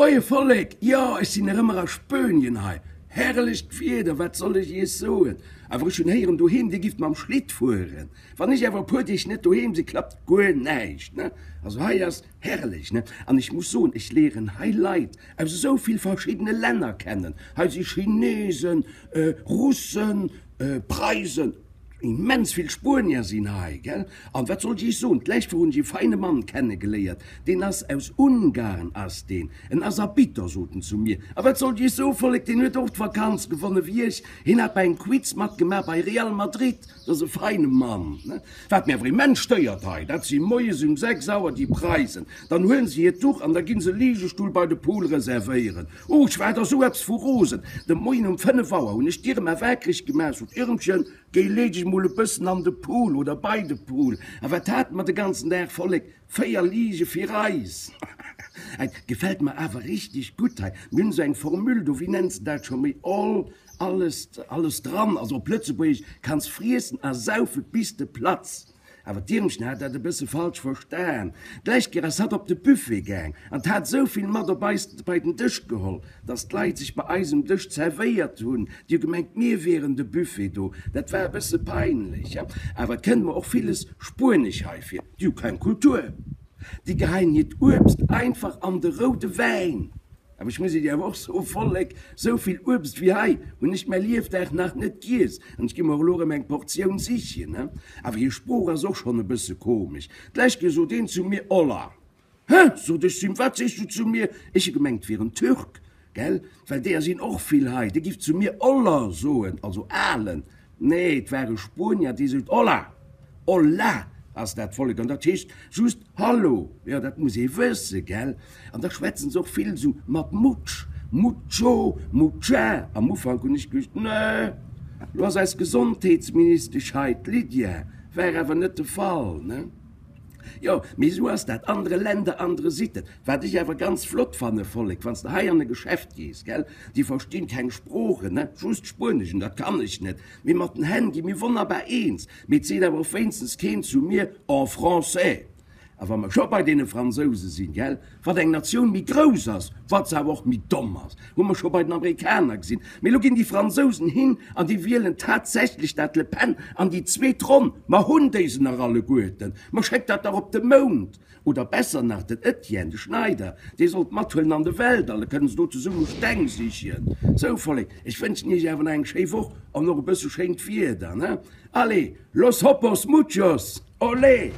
Moie Vollek, jo ech sinn nach ëmmer a Spönien hei. Herrlecht Wieder, wat soll ech iech soen. Awer ech hunn héieren doheem dir gifft mam Schlitt fueren. Wann ech awer e puer Deeg net doheem sinn, klappt guer näischt ne. Also hei ass herrlech ne. An ech muss soen, ech léieren hei Leit aus esou vill verschiddene Länner kennen. Hei si Chinesen, Russen, Preisen. Immens vill Spuenier sinn hei, gell? An wat soll ech iech soen, d'lescht Woch hunn ech ee feine Mann kennegeléiert, deen ass aus Ungarn ass deen, en ass Arbitter, sot en zu mir. A wat soll ech iech soen, Vollek, deen huet och d'Vakanz gewonne wéi ech, hien hat bei engem Quiz matgemaach bei Real Madrid, dat ass e feine Mann, ne? Wat mir awer immens stéiert hei, dat si moies um 6 Auer déi Preisen, dann huelen se hiert Duch an da ginn se e Ligestull bei de Pool reservéieren. Oh, ech war der sou eppes vu rosen! De Moien um 5 Auer hunn ech d'Irma waakreg gemaach, sot, Irmchen, géi lee dech mol e bëssen an de Pool oder bei de Pool. A wat hate mer de ganzen Dag, Vollek? 4 Lige fir eis! Et gefält mer awer richteg gutt hei. Mir hunn esou eng Formule do, wéi nenns de dat scho méi? All, alles, alles dran. Also op Lëtzebuergesch, kanns friessen a saufe bis de platz. Awer d'Irmchen hat dat e bësse falsch verstan. D'lescht Kéier ass hatt op de Buffet gaang an hat esou vill mat op eis bei den Dësch geholl, dass d'Leit sech bei eis um Dësch zerwéiert hunn. Déi hu gemengt, mir wieren de Buffet do. Dat war e bësse peinlech. Awer et kënnt mer och villes spuenesch hei vir. Déi hu keng Kultur. Déi geheien hiert Uebst einfach an de roude Wäin. Awer ech muss Iech awer och soen, Vollek, sou vill Uebst wéi hei hunn ech mäi Liefdag nach net giess an ech gi mer och elo erëm eng Portioun sichen. Awer hir Sprooch ass och schonn e bësse komesch. D'lescht Kéier sot een zu mir, Hola. Hä? sot ech zu him, wat sees du zu mir? Ech hu gemengt, et wier en Türk, gell, well deeër sinn och vill hei. Dee giff zu mir Oller soen, also Alen. Nee, et war e Spuenier, dee sot, Hola! Hola ass dat Vollek, an dat heescht just Hallo. Jo, dat muss ee wësse, gell? An da schwätzen se och vill esou mat mutsch, mucho, mucha. Am Ufank hunn ech geduecht, Nee, lo ass eis Gesondheetsministesch hei, d'Lydia. War awer net de Fall, ne? Jo, mee esou ass dat, andere Länder, andere Sitten. Wat ech awer ganz flott fanne, Vollek, wann s de hei an e Geschäft gees, gell, déi verstinn keng Sproochen, ne, just Spuenesch, an dat kann ech net, mee mat den Hänn gi mir wonnerbar eens. Mee et seet awer och wéinstens keen zu mir en français. A wa mer scho bei deene Fransouse sinn, gell, wat eng Natioun méi grouss ass, wat se awer och méi domm ass, hu mer scho bei den Amerikaner gesinn. Mee elo ginn déi Fransousen hin an déi wielen tatsächlech dat Le Pen an déi zweet Ronn. Mer hunn déi se nach alleguerten. Mer schéckt dat dach op de Mound. Oder besser nach, den Etienne, de Schneider, dee soll d'mathuelen an de Weltall, da kënnen se do zesumme Steng sichen. Sou, Vollek, ech wënschen iech awer nach eng schéi Woch an och e bësse schéint Wieder, ne? Allez, los hopos muchos! Olé!